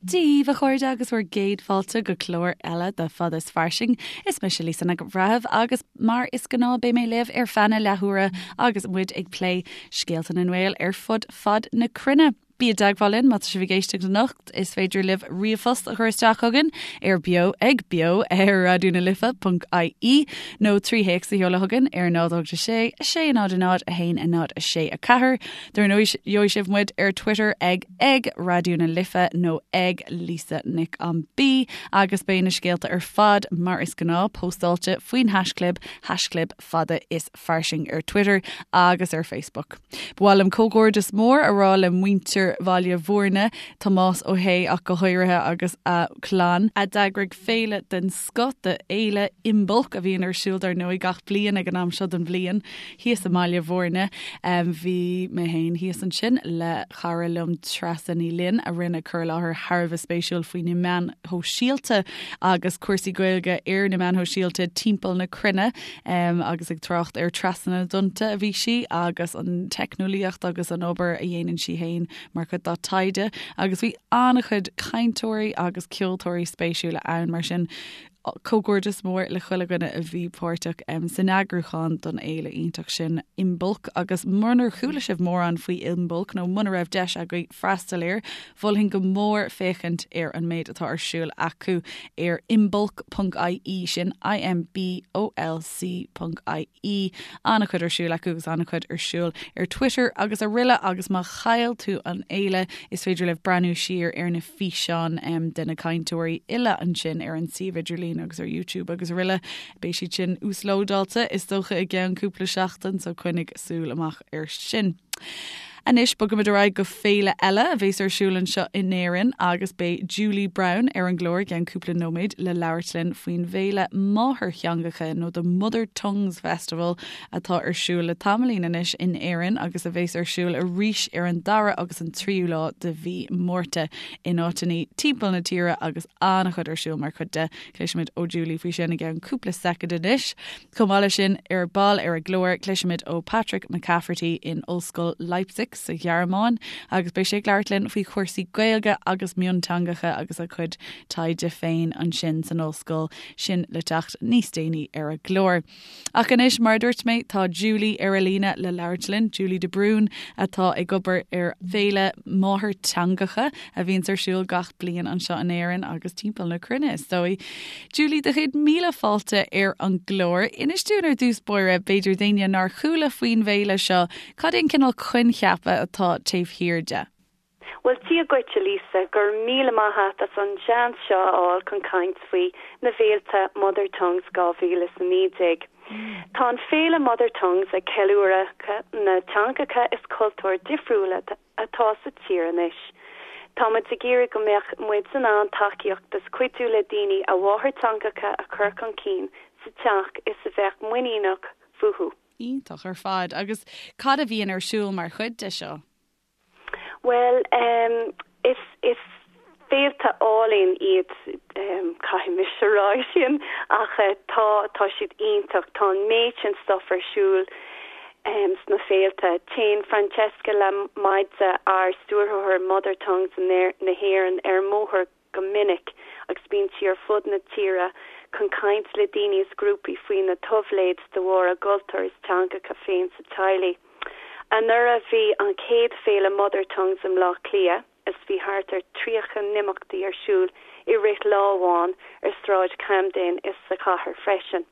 Dia daoibh a chairde agus bhur gcéad fáilte go clár eile de Fada is Fairsing. Is mise Lisa Nic an Bhreithimh agus mar is gnáth beidh mé libh ar feadh na leathuaire agus muid ag plé scéalta na nGael ar fud fad na cruinne. Bí i dteagmháil linn má tá sibh ag éisteacht anocht, is féidir libh ríomhphost a chur isteach chugainn ar beo ag beo ar raidió na life ponc ie nó 3 théacs a sheoladh chugainn ar 0 8 6 6 0 0 1 0 6 4. Dar ndóigh gheobhaidh sibh muid ar Twitter ag ag Raidió na Life nó ag Lisa Nic an B agus beidh na scéalta ar fad mar is gnáth póstáilte faoin haischlib haischlib fada is fairsing ar Twitter agus ar Facebook. Ba mhaith liom comhghairdeas mór a rá le muintir Bhaile Bhúirne, Tomás Ó hAodha ach go háirithe agus a chlann, a d'eagraigh féile den scoth de Fhéile Imbolc a bhíonn ar siúl dar ndóigh gach bliain ag an am seo den bhliain thíos i mBaile Bhúirne. Bhí mé féin thíos ansin le cara liom Treasa Ní Fhloinn a rinne cur i láthair thar a bheith spéisiúil faoi na meáin shóisialta agus cúrsaí Gaeilge ar na meáin shóisialta timpeall na cruinne. Agus ag trácht ar Trasna na dTonnta a bhí sí agus an teicneolaíocht agus an obair a dhéanann sí féin mar chuid dá taighde agus bhí an-chuid cainteoirí agus ceoltóirí spéisiúla ann mar sin comhghairdeas mór le chuile dhuine a bhí páirteach san eagrúchán don fhéile iontach sin Imbolc agus munar chuala sibh mórán faoi Imbolc nó muna raibh deis agaibh freastal air, mholfainn go mór féachaint ar an méid atá ar siúl acu ar imbolc.ie, sin I-M-B-O-L-C ponc I-E. An-chuid ar siúl acu agus an-chuid ar siúl ar Twitter agus araile agus má chaill tú an fhéile is féidir libh breathnú siar ar na físeáin de na cainteoirí uile ansin ar an suíomh idirlín agus ar YouTube agus araile. Beidh siad sin uaslódáilte is dócha i gceann cúpla seachtain so coinnigh súil amach air sin. Anois bogaimid ar aghaidh go féile eile a bhéas ar siúl anseo in Éirinn agus beidh Julie Brown ar an gclár i gceann cúpla nóiméad le labhairt linn faoin bhféile máthairtheangacha nó The Mother Tongues Festival atá ar siúl le tamaillín anois in Éirinn agus a bhéas ar siúl arís ar an dara agus an tríú lá de mhí Márta in áiteanna timpeall na tíre agus an-chuid ar siúl mar chuid de. Cloisfimid ó Julie faoi sin i gceann cúpla soicind anois. Chomh maith leis sin, ar ball ar an gclár, cloisfimid ó Patrick McCafferty in Ollscoil Leipzig sa Ghearmáin agus beidh sé ag labhairt linn faoi chúrsaí Gaeilge agus mionteangacha agus a chuid taighde féin ansin san ollscoil sin le teacht níos déanaí ar an gclár. Ach anois, mar a dúirt mé, tá Julie ar an líne le labhairt linn, Julie de Brún atá ag obair ar Fhéile Máthairtheangacha a bhíonns ar siúl gach bliain anseo in Éirinn agus timpeall na cruinne, is dóigh. Julie, do chéad míle fáilte ar an gclár. Inis dúinn ar dtús báire, b'fhéidir d'éinne nár chuala faoin bhféile seo, cad é an cineál coincheapa atá taobh thiar de? Bhuel, Dia dhuit, a Lisa, go raibh míle maith a't as an seans seo a fháil chun caint faoi na bhféilte Mother Tongues 2019. Tá an féile Mother Tongues ag ceiliúradh na teangacha is cultúir difriúla atá sa tír anois. Tá muid ag iarraidh go mbeadh muid in ann tacaíocht is cuidiú le daoine a mháthairteangacha a chur chun cinn sa teach is a bheadh muiníneach fúthu. Iontach ar fad. Agus cad a bhíonn ar siúl mar chuid de seo? Bhuel, is, is féilte álainn iad, caithfidh mise a rá sin, ach tá, tá siad iontach. Tá an méid sin stuff ar siúl sna féilte. Téann Francesca Lamidze, ár stiúrthóir Mother Tongues na hÉireann, ar an mbóthar go minic agus bíonn sí ar fud na tíre chun caint le daoine is grúpaí faoi na táibléid de bharr a gcultúr is teangacha féin sa teaghlaigh. Anuraidh bhí an chéad féile Mother Tongues i mBleá Cliath is bhí thart ar 30 n-imeachtaí ar siúl i rith lá amháin ar Sráid Camden is sa chathair freisin.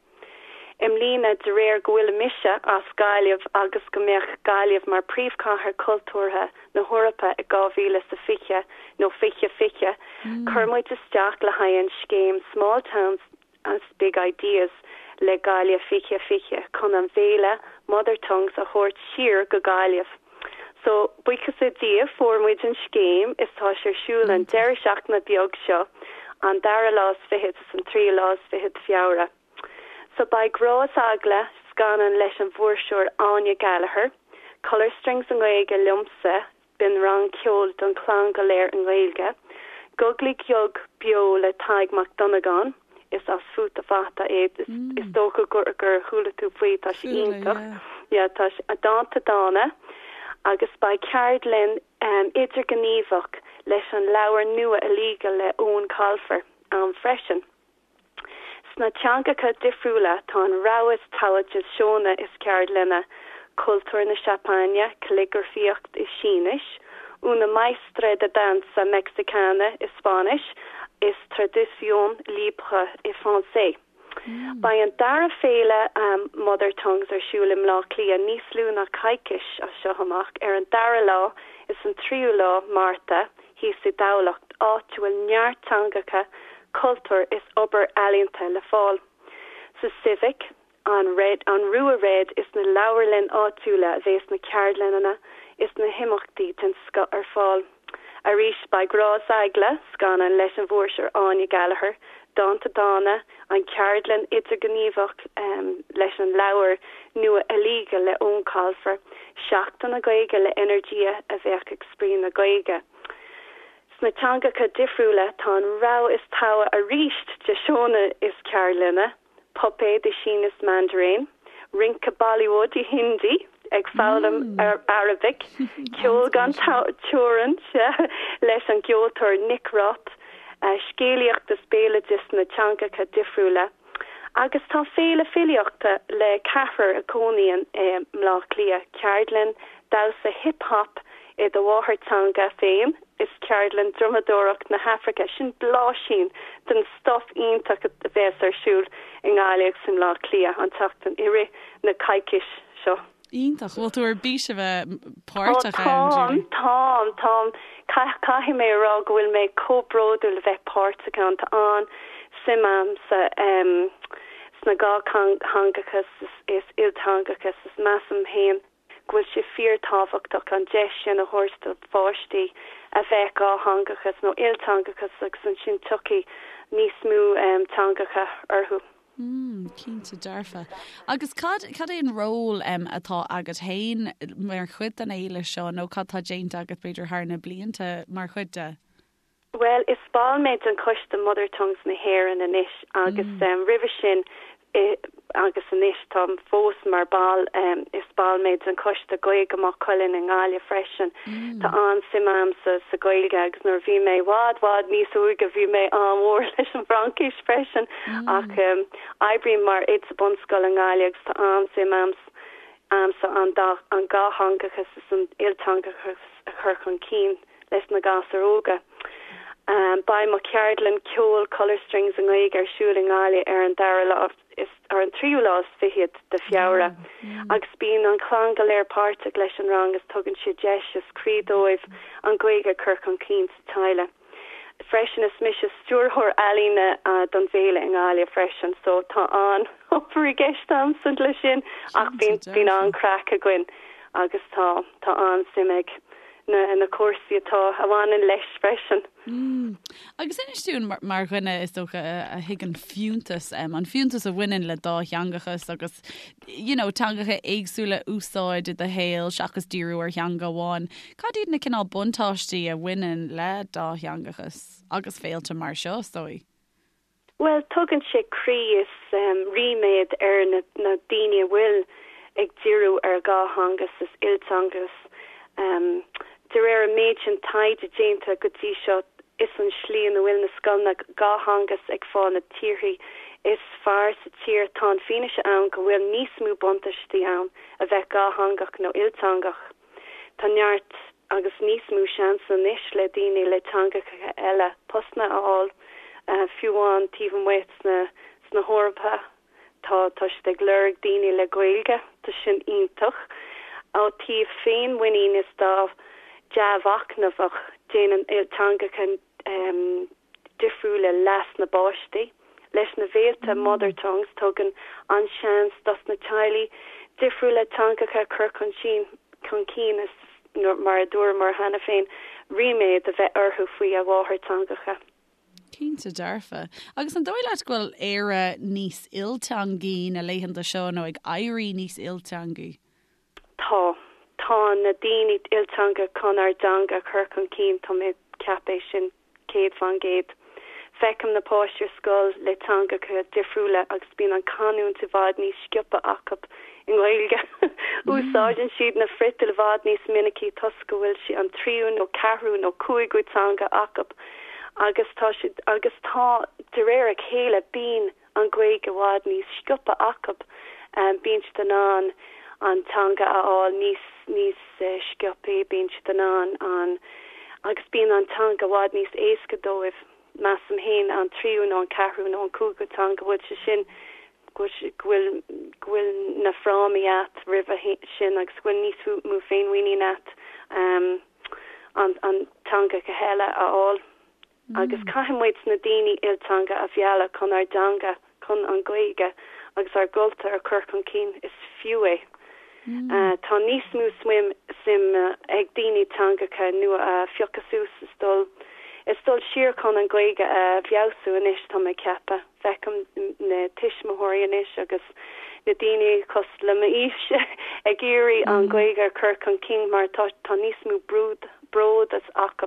I mbliana, de réir go bhfuil mise as Gaillimh agus go mbeadh Gaillimh mar príomhchathair cultúrtha na hEorpa i 2020 nó 2020, chuir muid isteach le haghaidh an scéim Small Towns Big Ideas le Gaillimh 2020 chun an bhféile Mother Tongues a thabhairt siar go Gaillimh. So, buíochas le Dia, fuair muid an scéim is tá sé ar siúl an deireadh seachtaine beag seo, an dara lá is fichead is an tríú lá is fichead Feabhra. So beidh Grá is Eagla, scannán leis an bhfuirseoir Áine Gallagher, Colour Strings i nGaeilge liomsa, b'in rang ceoil don chlann go léir i nGaeilge, Guglaí Gug beo le Tadhg Mac Dhonnagáin, is as Futa Fata é, is dócha gur gur chuala tú faoi, tá sé iontach, yeah tá sé, dánta dána, agus beidh ceardlann idirghníomhach. leis an leabhar nua Illegal le Eoin Colfer ann freisin. Sna teangacha difriúla tá an rogha is togha de seónna is ceardlanna, cultúr na Seapáine, calligrafaíocht i Sínis, una maestra de danza mexicana i Spáinnis is traduction libre i Francais. Beidh an dara féile Mother Tongues ar siúl i mBleá Cliath níos lú ná coicís as seo amach, ar an dara lá is an tríú lá Márta thíos i dTamhlacht, áit a bhfuil neart teangacha, cultúr is obair ealaíonta le fáil. Sa Civic, an Red, an Rua Red is na leabharlann áitiúla a bhéas na ceardlanna is na himeachtaí den scoth ar fáil. Arís beidh Grá is Eagla, scannán leis an bhfuirseoir Áine Gallagher, Dánta Dána, an cheardlann idirghníomhach leis an leabhar nua Illegal le Eoin Colfer, Seachtain na Gaeilge le Energia a bheadh ag spraoi na Gaeilge. Sna teangacha difriúla tá an rogha is togha arís de seónna is ceardlanna. puipéad i Sínis Mandarin, rince Bollywood i Hindi, ag foghlaim Arabic, ceol gan teorainn, sea, leis an gceoltóir Nick Roth, scéalaíocht is béaloideas sna teangacha difriúla. Agus tá féile filíochta le ceathrar a chónaíonn i mBleá Cliath, ceardlann damhsa hip hop i do mháthairteanga féin is ceardlann drumadóireacht na hAfraice, sin blaisín den stuif iontach a bheas ar siúl i nGaillimh agus i mBleá Cliath an tseachtain i rith na coicís seo. Iontach. Bhfuil tú ar bís a bheith páirteach ann, Julie? Táim, táim, táim. Caithfidh mé a rá go bhfuil mé chomh bródúil a bheith páirteach ann. Tá an-suim a'msa sna dhátheangachas is ilteangachas is measaim féin go bhfuil sé fíor-tábhachtach an deis sin a thabhairt do pháistí a bheith dhátheangachas nó ilteangachas agus ansin tiocfaidh níos mó teangacha orthu. Mm, cinnte dearfa. Agus cad, cad é an ról atá agat féin mar chuid den fhéile seo nó cad tá déanta agat b'fhéidir thar na blianta mar chuid de? Bhuel, is ball mé den choiste Mother Tongues na hÉireann anois agus roimhe sin agus anois táim fós mar ball, is ball mé den choiste Gaeilge Maigh Cuilinn i nGaillimh freisin. Tá an-suim a'msa sa Ghaeilge agus nuair a bhí mé i bhfad, bhfad níos óige bhí mé an-mhór leis an bhFraincis freisin ach oibrím mar oide sa bunscoil i nGaillimh agus tá an-suim a'msa an dá, an dhátheangachas is an ilteangachas a chur chun cinn. leis na gasúir óga. Beidh mo cheardlann ceoil Colour Strings i nGaeilge ar siúl i nGaillimh ar an dara lá is ar an tríú lá is fichead de Feabhra agus bíonn an chlann go léir páirteach leis an rang is tugann sé deis is croí dóibh an Ghaeilge a chur chun cinn sa teaghlach. Freisin is mise stiúrthóir ealaíne don bhféile i nGaillimh freisin so tá an obair i gceist a'msa leis sin ach bíonn bíonn an-craic againn agus tá tá an-suim ag na na cúrsaí atá a bhaineann leis freisin. Mm. Agus inis dúinn mar, mar dhuine is dócha a, a thuigeann fiúntas, um, an fiúntas a bhaineann le dátheangachas agus you know, teangacha éagsúla a úsáid i do shaol seachas díriú ar theanga amháin. Cad iad na cineál buntáistí a bhaineann le dátheangachas agus féilte mar seo, is dóigh? Bhuel, tugann sé croí is ríméad ar na daoine a bhfuil ag díriú ar dhátheangachas is ilteangachas. De réir an méid sin taighde déanta go dtí seo, is an slí ina bhfuil na scoileanna dhátheangachas ag fáil na torthaí is fearr sa tír. Tá an fianaise ann go bhfuil níos mó buntáistí ann a bheith dhátheangach nó ilteangach. Tá neart agus níos mó seans anois le daoine le teangacha eile postanna a fháil, fiú amháin taobh amuigh sna sna hEorpa. Tá tá siad ag lorg daoine le Gaeilge, tá sin iontach. Ó taobh féinmhuinín is dá dea-mhachnamhach, déanann ilteangacha difriúla leas na bpáistí. Leis na bhféilte Mother Tongues tugann an seans dos na teaghlaigh difriúla teangacha a chur chun chun cinn is, mar a dúramar cheana féin, ríméad a bheith orthu faoi a mháthairteangacha. Cinnte dearfa. Agus an dóigh leat go bhfuil Éire níos ilteangaí na laethanta seo nó ag éirí níos ilteangaí? Tá. Tá na daoine ilteangach chun ár dteanga a chur chun cinn, tá mé ag ceapadh é sin 100%. Feicim na páistí ar scoil le teangacha difriúla agus bíonn an canúint i bhfad níos sciobtha acu. i nGaeilge. Úsáideann siad na friotail i bhfad níos minicí toisc go bhfuil sé an tríú nó ceathrú nó cúigiú teanga acu agus tá siad agus tá de réir a chéile bíonn an Ghaeilge i bhfad níos sciobtha acu. Bíonn siad in ann an teanga a fháil níos níos sciobthaí, bíonn siad in ann an agus bíonn an teanga i bhfad níos éasca dóibh, measaim féin, an tríú nó an ceathrú nó an cúigiú teanga, go bhfuil sé sin go bhfuil go bhfuil na frámaí a't roimhe sin agus go bhfuil níos mó féinmhuinín a't an an teangacha eile a fháil. Agus caithfidh muid na daoine ilteanga a mhealladh chun ár dteanga, chun an Ghaeilge agus ár gcultúr a chur chun cinn. Is fiú é. Tá níos mó suim ag daoine teangacha nua a phiocadh suas is dul is dul siar chun an Ghaeilge a fheabhsú anois, tá mé ag ceapadh. Feicim na tuismitheoirí anois agus na daoine cosúil le m'aois ag iarraidh an Ghaeilge a chur chun cinn mar tá tá níos mó bród bród as acu.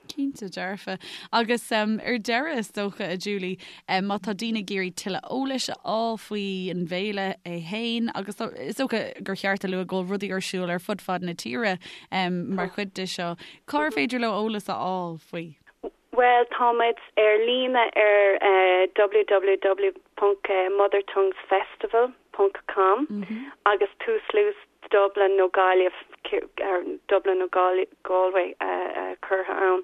Cinnte dearfa. Agus ar deireadh, is dócha, a Julie, má tá daoine ag iarraidh tuilleadh eolais a fháil faoi an bhféile é féin, agus is dócha gur cheart a lua go bhfuil rudaí ar siúl ar fud fad na tíre mar chuid de seo, cár féidir leo eolas a fháil faoi? Bhuel, táimid ar líne ar www ponc mothertonguesfestival ponc com agus tuaslais Dublin nó Gaillimh, Dublin nó Galway curtha ann.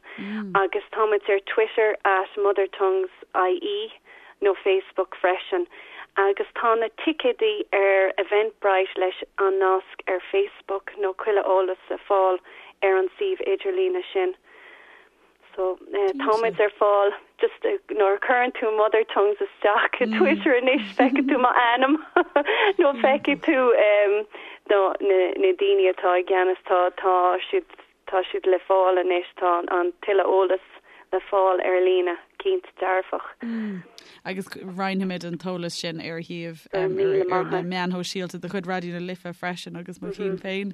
Agus táimid ar Twitter at mothertonguesie nó Facebook freisin. Agus tá na ticéidí ar Eventbrite leis an nasc ar Facebook nó chuile eolas le fáil ar an suíomh idirlíne sin. So táimid ar fáil just nuair a chuireann tú mother tongues isteach i Twitter anois feicfidh tú m'ainm nó feicfidh tú na na daoine atá i gceannas tá tá siad tá siad le fáil anois tá an tuilleadh eolas le fáil ar líne cinnte dearfach. Agus roinnfimid an t-eolas sin ar shuíomh ar na meáin shóisialta de chuid Raidió na Life freisin agus mo chinn féin.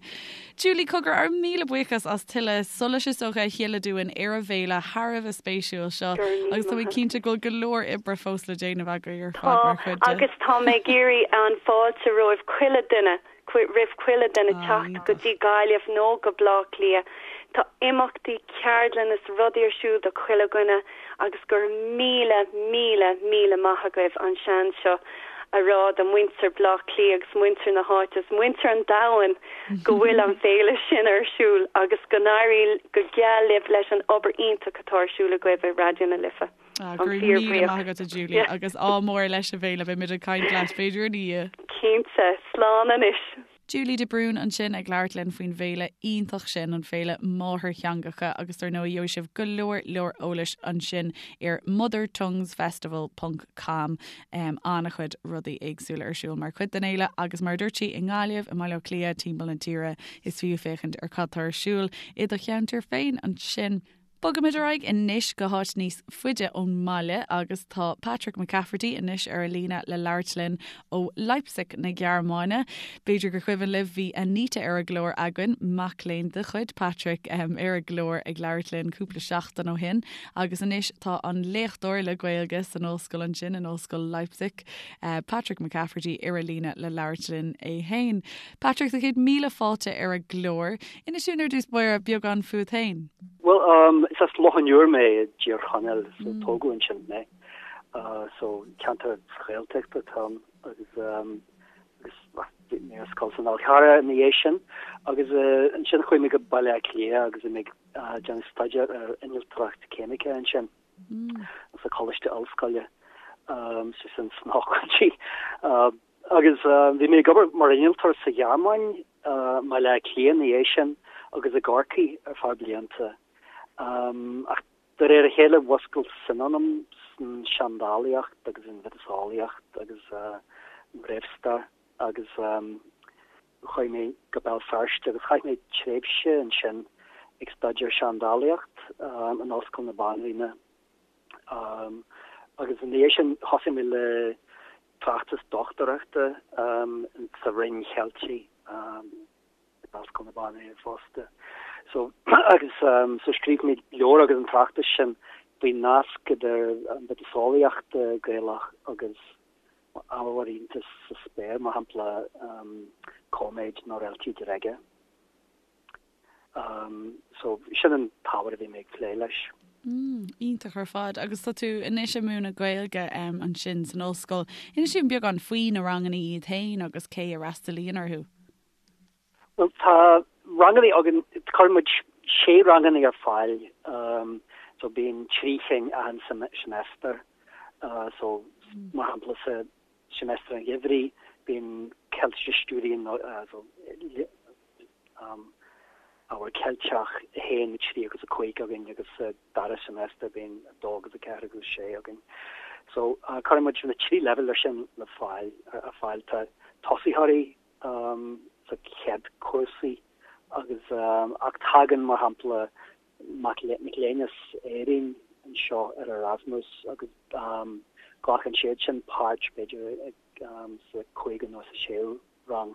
Julie cogar ár míle buíochas as tuilleadh solais is dócha a shileadh dúinn ar an bhféile thar a bheith spéisiúil seo agus tá mé cinnte go bhfuil go leor oibre fós le déanamh agaibh ar fad mar chuid de. Agus tá mé ag iarraidh an fáilte roimh chuile duine roimh chuile duine teacht go dtí Gaillimh nó go Bleá Cliath. Tá imeachtaí, ceardlanna is rudaí ar siúl do chuile dhuine agus go raibh míle, míle, míle maith agaibh an seans seo a rá do muintir Bleá Cliath agus muintir na háite is muintir an domhain go bhfuil an féile sin ar siúl agus go n-éirí go geal libh leis an obair iontach atá ar siúl agaibh i Raidió na Life. Ah, go raibh míle maith agat a Julie agus ádh mór leis an bhféile, beidh muid ag caint leat b'fhéidir ina dhiaidh. Cinnte, slán anois. Julie de Brún ansin ag labhairt linn faoin bhféile iontach sin, an Féile Máthairtheangacha agus dar ndóigh gheobhaidh sibh go leor leor eolais ansin ar mothertonguesfestival ponc com. An-chuid rudaí éagsúla ar siúl mar chuid den fhéile agus mar a dúirt sí i nGaillimh, i mBaile Átha Cliath, timpeall na tíre is fiú féachaint ar cad tá ar siúl i do cheantar féin ansin. Bogaimid ar aghaidh anois go háit níos faide ón mbaile agus tá Patrick McCafferty anois ar an líne le labhairt linn ó Leipzig na Gearmáine. B'fhéidir gur cuimhin libh bhí Anita ar an gclár againn, mac léinn de chuid Patrick ar an gclár ag labhairt linn cúpla seachtain ó shin agus anois tá an léachtóir le Gaeilge san ollscoil ansin in Ollscoil Leipzig, Patrick McCafferty ar an líne le labhairt linn é féin. Patrick, tá 100,000 fáilte ar an gclár. Inis dúinn ar dtús báire beagán fút féin. Bhuel, um, is as Loch an Iúir mé i dTír Chonaill, so tógadh ansin mé. So ceantar Gaeltachta atá ann agus um, agus bhí mé ar scoil san Fhál Carrach ina dhiaidh sin agus uh, ansin chuaigh mé go Baile Átha Cliath agus bhí mé ag uh, déanamh staidéar ar innealtóireacht ceimice ansin sa Choláiste Ollscoile um, so sin sna hochtóidí. Uh, Agus bhí mé ag obair mar innealtóir sa Ghearmáin, i mBaile Átha Cliath ina dhiaidh sin agus i gCorcaigh ar feadh blianta. Ach de réir a chéile mhúscail suim ionam san seandálaíocht agus an mhiotaseolaíocht agus an réamhstair agus chuaigh mé go Béal Feirste agus chaith mé tréimhse ansin ag staidéar seandálaíocht in Ollscoil na Banríona. Agus ina dhiaidh sin thosaigh mé le tráchtas dochtúireachta sa Roinn Cheiltigh in Ollscoil na Banríona fosta. So agus so scríobh mé leabhar agus an tráchtas sin faoin nasc idir an mhiotaseolaíocht Gaelach agus. Ábhar iontais sa spéir, mar shampla cóiméid nó réaltaí díreacha. So, sin an t-ábhar a bhí mé ag plé leis. Iontach ar fad. Agus tá tú anois ag múineadh Gaeilge ansin san ollscoil. Inis dúinn beagán faoi na ranganna iad féin agus cé a fhreastalaíonn orthu. Bhuel, tá ranganna againn, cuireann muid sé ranganna ar fáil, so bíonn 3 chinn achan seimeastar. So, mar shampla, sa seimeastar an gheimhridh, bíonn Keltische Studien, so ábhar Ceilteach 1, 3 agus 5 againn agus sa dara seimeastar bíonn 2 agus 4 agus 6 againn. So, cuireann muid na 3 leibhéal sin le fáil, ar fáil. Tá tosaitheoirí sa chéad cúrsaí agus ach tagann mar shampla mac léinn as Éirinn anseo ar Erasmus agus glacann siad sin páirt b'fhéidir sa cúigiú nó sa séú rang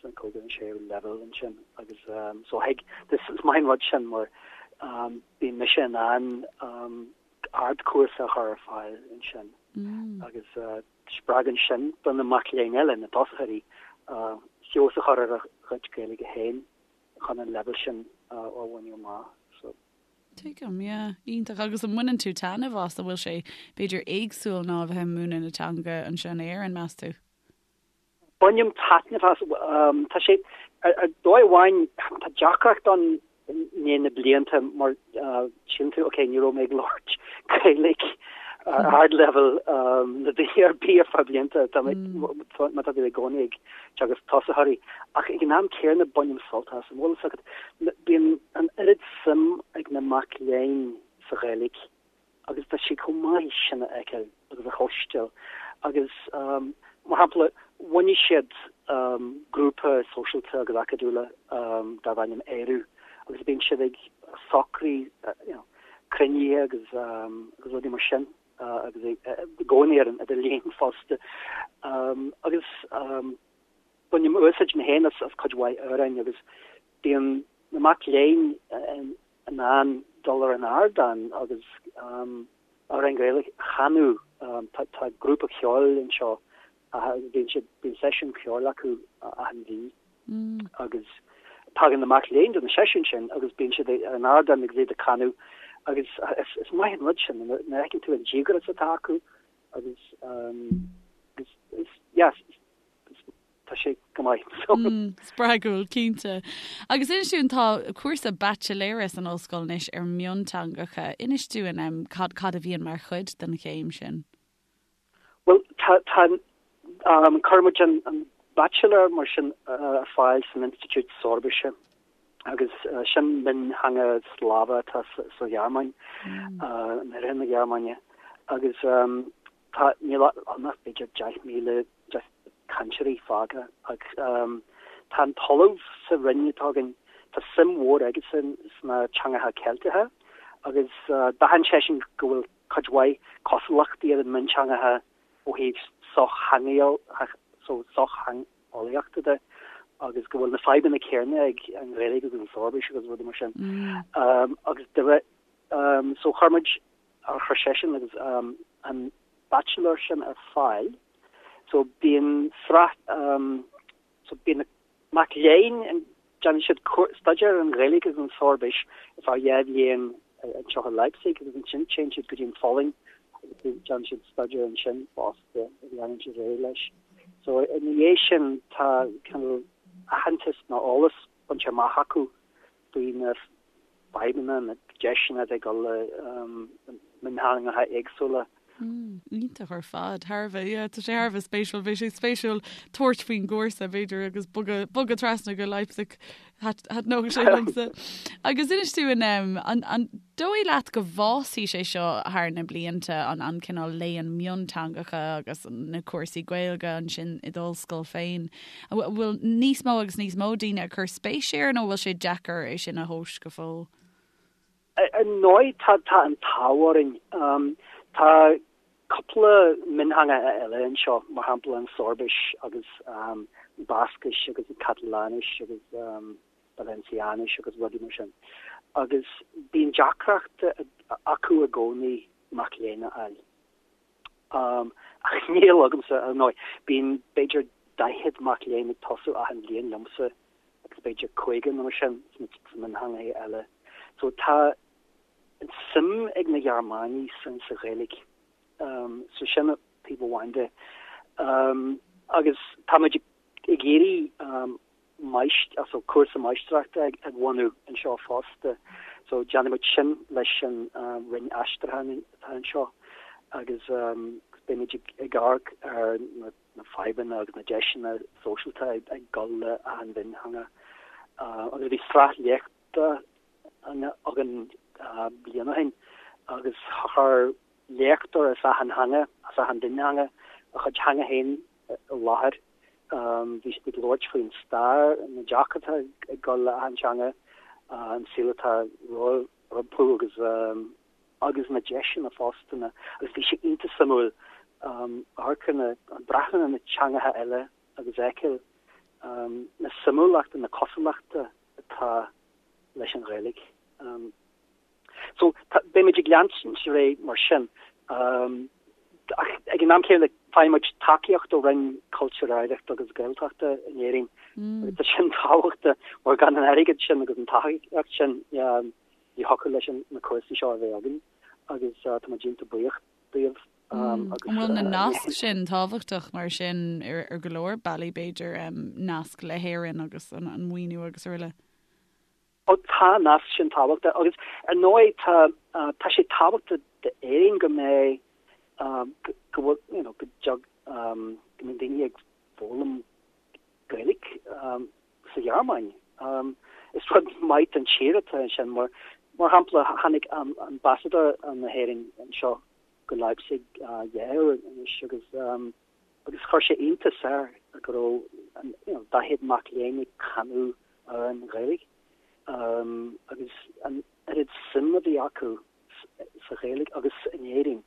sa cúigiú nó séú leibhéal ansin agus so thig is maith an rud sin mar bíonn mise in ann ardchúrsa a chur ar fáil ansin agus Spreagann sin do na mac léinn eile, na tosaitheoirí, feabhas a chur ar a gcuid Gaeilge féin chun an leibhéal sin a bhaint amach. So. Tuigim, yeah. Iontach. Agus an mbaineann tú taitneamh as? An bhfuil sé, b'fhéidir, éagsúil ná a bheith ag múineadh na teanga anseo in Éirinn, meas tú? Bainim taitneamh as. Tá sé, ar dóigh amháin, tá deacracht ann i ndiaidh na blianta mar síleann tú, ok, ní raibh mé ag labhairt Gaeilge ar ardleibhéal le daoine ar bith ar feadh blianta, tá mé, má tá tú i gcónaí ag teagasc tosaitheoirí. Ach ag an am céanna bainim sult as. An bhfuil fhios agat, bíonn an oiread suim ag na mac léinn sa Ghaeilge agus tá sé chomh maith sin a fheiceáil agus a chloisteáil agus mar shampla bhunaigh siad grúpa sóisialta agus acadúla darb ainm Ériu agus bíonn siad ag socrú you know cruinnithe agus agus rudaí mar sin agus i gcónaí ar an idirlíon fosta agus bainim úsáid mé féin as cuid mhaith amhráin agus bíonn na mac léinn in ann dul ar an ardán agus amhráin Ghaeilge a chanadh. Tá grúpa ceoil anseo bíonn siad, bíonn seisiún ceoil acu achan mhí agus tagann na mac léinn do na seisiúin sin agus bíonn siad ar an ardán agus iad ag canadh agus is maith an rud sin nuair a fheiceann tú an díograis atá acu agus agus yes, Tá sé go maith. Spreagúil, cinnte. Agus inis dúinn, tá cúrsa baitsiléara san ollscoil anois ar mhionteangacha. Inis dúinn cad cad a bhíonn mar chuid den chéim sin. Bhuel, tá, tá, cuireann muid an, an baitsiléir mar sin ar fáil san Institiúid Soirbise agus sin miontheanga Slavach atá sa Ghearmáin, in oirthear na Gearmáine. Agus Tá, níl ann ach b'fhéidir 10,000 cainteoirí fágtha ach tá an t-ollamh sa roinn atá againn, tá suim mhór aigesan sna teangacha Ceilteacha agus d'aithin seisean go bhfuil cuid mhaith cosúlachtaí idir na mionteangacha ó thaobh sochtheangeolaíochta de agus go bhfuil na fadhbanna céanna ag an Ghaeilge agus an Soirbis agus rudaí mar sin. Agus de réir, so chuir muid ar chuir seisean agus an bachelor sin ar fáil. So bíonn sraith, so bíonn na mac léinn, déanann siad staidéar ar an Ghaeilge agus an tSoirbis ar feadh dhá bhliain anseo i Leipzig agus ansin téann siad go dtí an Pholainn agus déanann siad staidéar ansin fosta agus leanann siad ar aghaidh leis. So ina dhiaidh sin tá cineál aitheantas nó eolas bainte amach acu faoi na fadhbanna, na deiseanna atá ag dul le mionteangacha éagsúla. Iontach ar fad. Thar a bheith, yeah, tá sé thar a bheith spéisiúil. Bheadh sé spéisiúil tabhairt faoin gcúrsa, b'fhéidir, agus bogadh, bogadh trasna go Leipzig. Thaitneodh sé liomsa. Agus inis dúinn, an, an dóigh leat go bhfásfaidh sé seo thar na blianta, an, an cineál léann mionteangacha agus na cúrsaí Gaeilge ansin i d'ollscoil féin? An bhfuil níos mó agus níos mó daoine ag cur spéis air nó an bhfuil sé deacair é sin a thomhas go fóill? Ar ndóigh tá tá an t-ádh orainn. Tá cúpla miontheanga eile anseo, mar shampla an Soirbis agus an Bascais agus an Cataláinis agus Valenciáinis agus rudaí mar sin. Agus bíonn deacracht acu i gcónaí mac léinn a fháil. Ach níl agamsa, ar ndóigh. Bíonn b'fhéidir 40 mac léinn ag tosú achan bhliain liomsa agus b'fhéidir 50 nó mar sin sna miontheangacha eile. So tá an suim ag na Gearmánaigh san sa Ghaeilge. So sin taobh amháin de. Agus táimid ag iarraidh so cúrsa máistreachta a bhunú anseo fosta. So déanfaimid sin leis an Roinn Aistriúcháin atá anseo agus beimid ag amharc ar na fadhbanna agus na deiseanna sóisialta ag dul le achan mhiontheanga. Agus bhí sraith léachta againn bliain ó shin agus chuir léachtóir as achan theanga, as achan mhiontheanga, a chuid teanga féin i láthair. Bhí siad ag labhairt faoin stair, na deacrachtaí ag dul le achan teanga, an saol atá rompu agus agus na deiseanna fosta. Agus bhí sé iontach suimiúil amharc ar na, breathnú ar na teangacha eile agus fheiceáil na suimiúlachta, na cosúlachta atá leis an Ghaeilge. So, beimid ag leanúint ar aghaidh mar sin. Ach ag an am céanna, faigheann muid tacaíocht ó Roinn Cultúir, Oidhreachta agus Gaeltachta in Éirinn. Agus tá sin tábhachtach mar gan an airgead sin agus an tacaíocht sin ní thiocfadh leis na cúrsaí seo a bheith againn agus tá muid iontach buíoch díobh. An bhfuil na naisc sin tábhachtach mar sin ar go leor bealaí b'fhéidir, nasc le hÉirinn agus an maoiniú agus araile? Ó tá an nasc sin tábhachtach agus ar ndóigh tá tá sé tábhachtach d'Éirinn go mbeidh go bhfuil you know go dtug go mbeidh daoine ag foghlaim Gaeilge sa Ghearmáin. Is rud maith don tír atá ansin mar mar shampla tháinig ambasadóir na hÉireann anseo go Leipzig dhá uair anois agus agus chuir sé iontas air go raibh you know 40 mac léinn ag canadh amhráin Ghaeilge agus an oiread suim a bhí acu sa Ghaeilge agus in Éirinn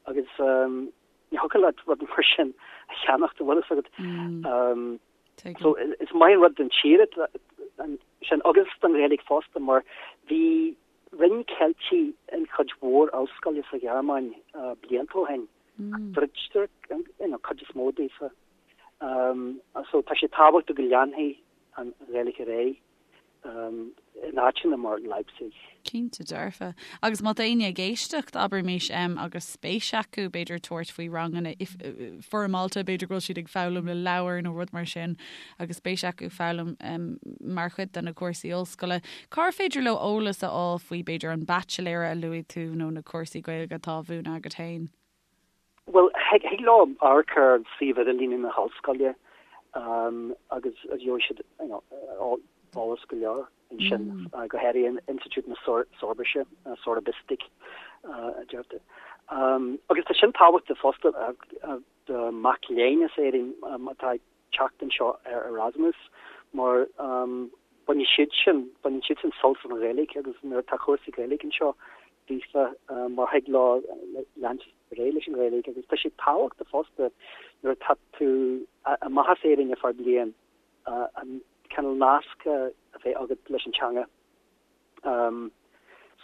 agus ní thiocfadh leat rud mar sin a cheannacht an bhfuil fhios agat. So is maith an rud don tír sin agus don Ghaeilge fosta mar bhí Roinn Ceiltigh in chuid mhór ollscoile sa Ghearmáin blianta ó shin. Druidtear an chuid is mó daofa. So tá sé tábhachtach go leanfaidh an Ghaeilge ar aghaidh in áiteanna mar Leipzig. Cinnte dearfa. Agus má tá éinne ag éisteacht, abraimis, agus spéis acu, b'fhéidir tabhairt faoi ranganna foirmeálta, b'fhéidir go bhfuil siad ag foghlaim le leabhar nó rud mar sin, agus spéis acu foghlaim mar chuid de na cúrsaí ollscoile, cár féidir leo eolas a fháil faoi, b'fhéidir, an baitsiléara a luaigh tú nó na cúrsaí Gaeilge atá á mhúineadh agat féin? Bhuel, thig leo amharc ar suíomh idirlíne na hollscoile agus gheobhaidh siad eolas go leor ansin, go háirithe Institiúid na Soirbise, Sorabistik a deirtear. Agus tá sin tábhachtach fosta do mhac léinn as Éirinn atá ag teacht anseo ar Erasmus mar bainfidh siad sin, baineann siad sin sult as an Ghaeilge agus nuair atá cúrsaí Gaeilge anseo daofa mar thig leo leanúint ar aghaidh leis an Ghaeilge agus tá sé tábhachtach fosta nuair atá tú amach as Éirinn ar feadh bliain an cineál nasc a bheith agat leis an teanga.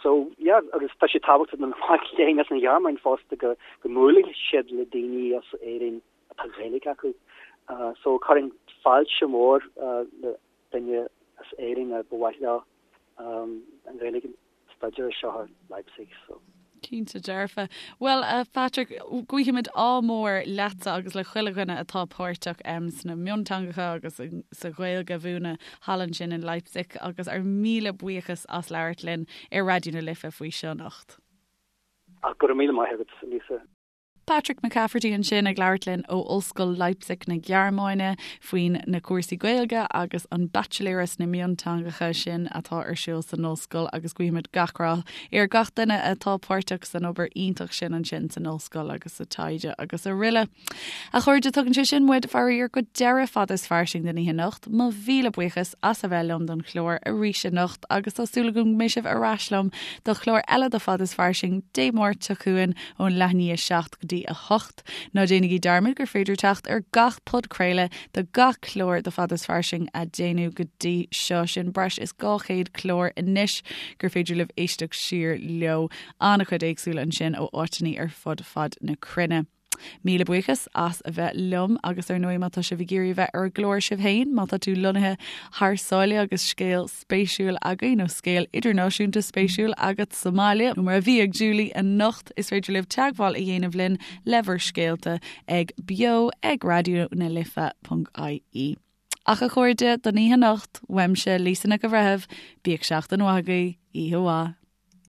So yeah agus tá sé tábhachtach do na mic léinn as an Ghearmáin fosta go go mbuailfidh siad le daoine as Éirinn atá Gaeilge acu. So chuirfinn fáilte mhór le duine as Éirinn a ba mhaith leo an Ghaeilge a staidéar anseo i Leipzig. So. Cinnte dearfa. Bhuel, a Phatrick, guímid ádh mór leatsa agus le chuile dhuine atá páirteach sna mionteangacha agus sa Ghaeilge a mhúineadh thall ansin in Leipzig agus ár míle buíochas as labhairt linn ar Raidió na Life faoi seo anocht. Go raibh míle maith agat, Lisa. Patrick McCafferty ansin ag labhairt linn ó Ollscoil Leipzig na Gearmáine faoin na cúrsaí Gaeilge agus an baitsiléara sna mionteangacha sin atá ar siúl san ollscoil agus guímid gach rath ar gach duine atá páirteach san obair iontach sin ansin san ollscoil agus sa taighde agus araile. A chairde, tugann sé sin muid, faraor, go deireadh Fada is Fairsing den oíche anocht. Mo mhíle buíochas as a bheith liom don chlár arís anocht agus tá súil agam go mbeidh sibh ar ais liom do chlár eile de Fada is Fairsing Dé Máirt seo chugainn ón leath i ndiaidh a 7 go dtí 8. Ná déanaigí dearmad gur féidir teacht ar gach podchraoladh de gach clár de Fada is Fairsing a déanadh go dtí seo, sin breis is 200 clár anois gur féidir libh éisteacht siar leo. An-chuid éagsúla ansin ó áiteanna ar fud fad na cruinne. Míle buíochas as a bheith liom agus ar ndóigh má tá sibh ag iarraidh a bheith ar an gclár sibh féin, má tá tú lonnaithe thar sáile agus scéal spéisiúil agaibh nó scéal idirnáisiúnta spéisiúil agat sa mbaile, nó mar a bhí ag Julie anocht, is féidir libh teagmháil a dhéanamh linn le bhur scéalta ag beo ag raidió na life ponc ie. Ach a chairde, don oíche anocht, uaimse Lisa Nic an Bhreithimh, bíodh seachtain mhaith agaibh, oíche mhaith.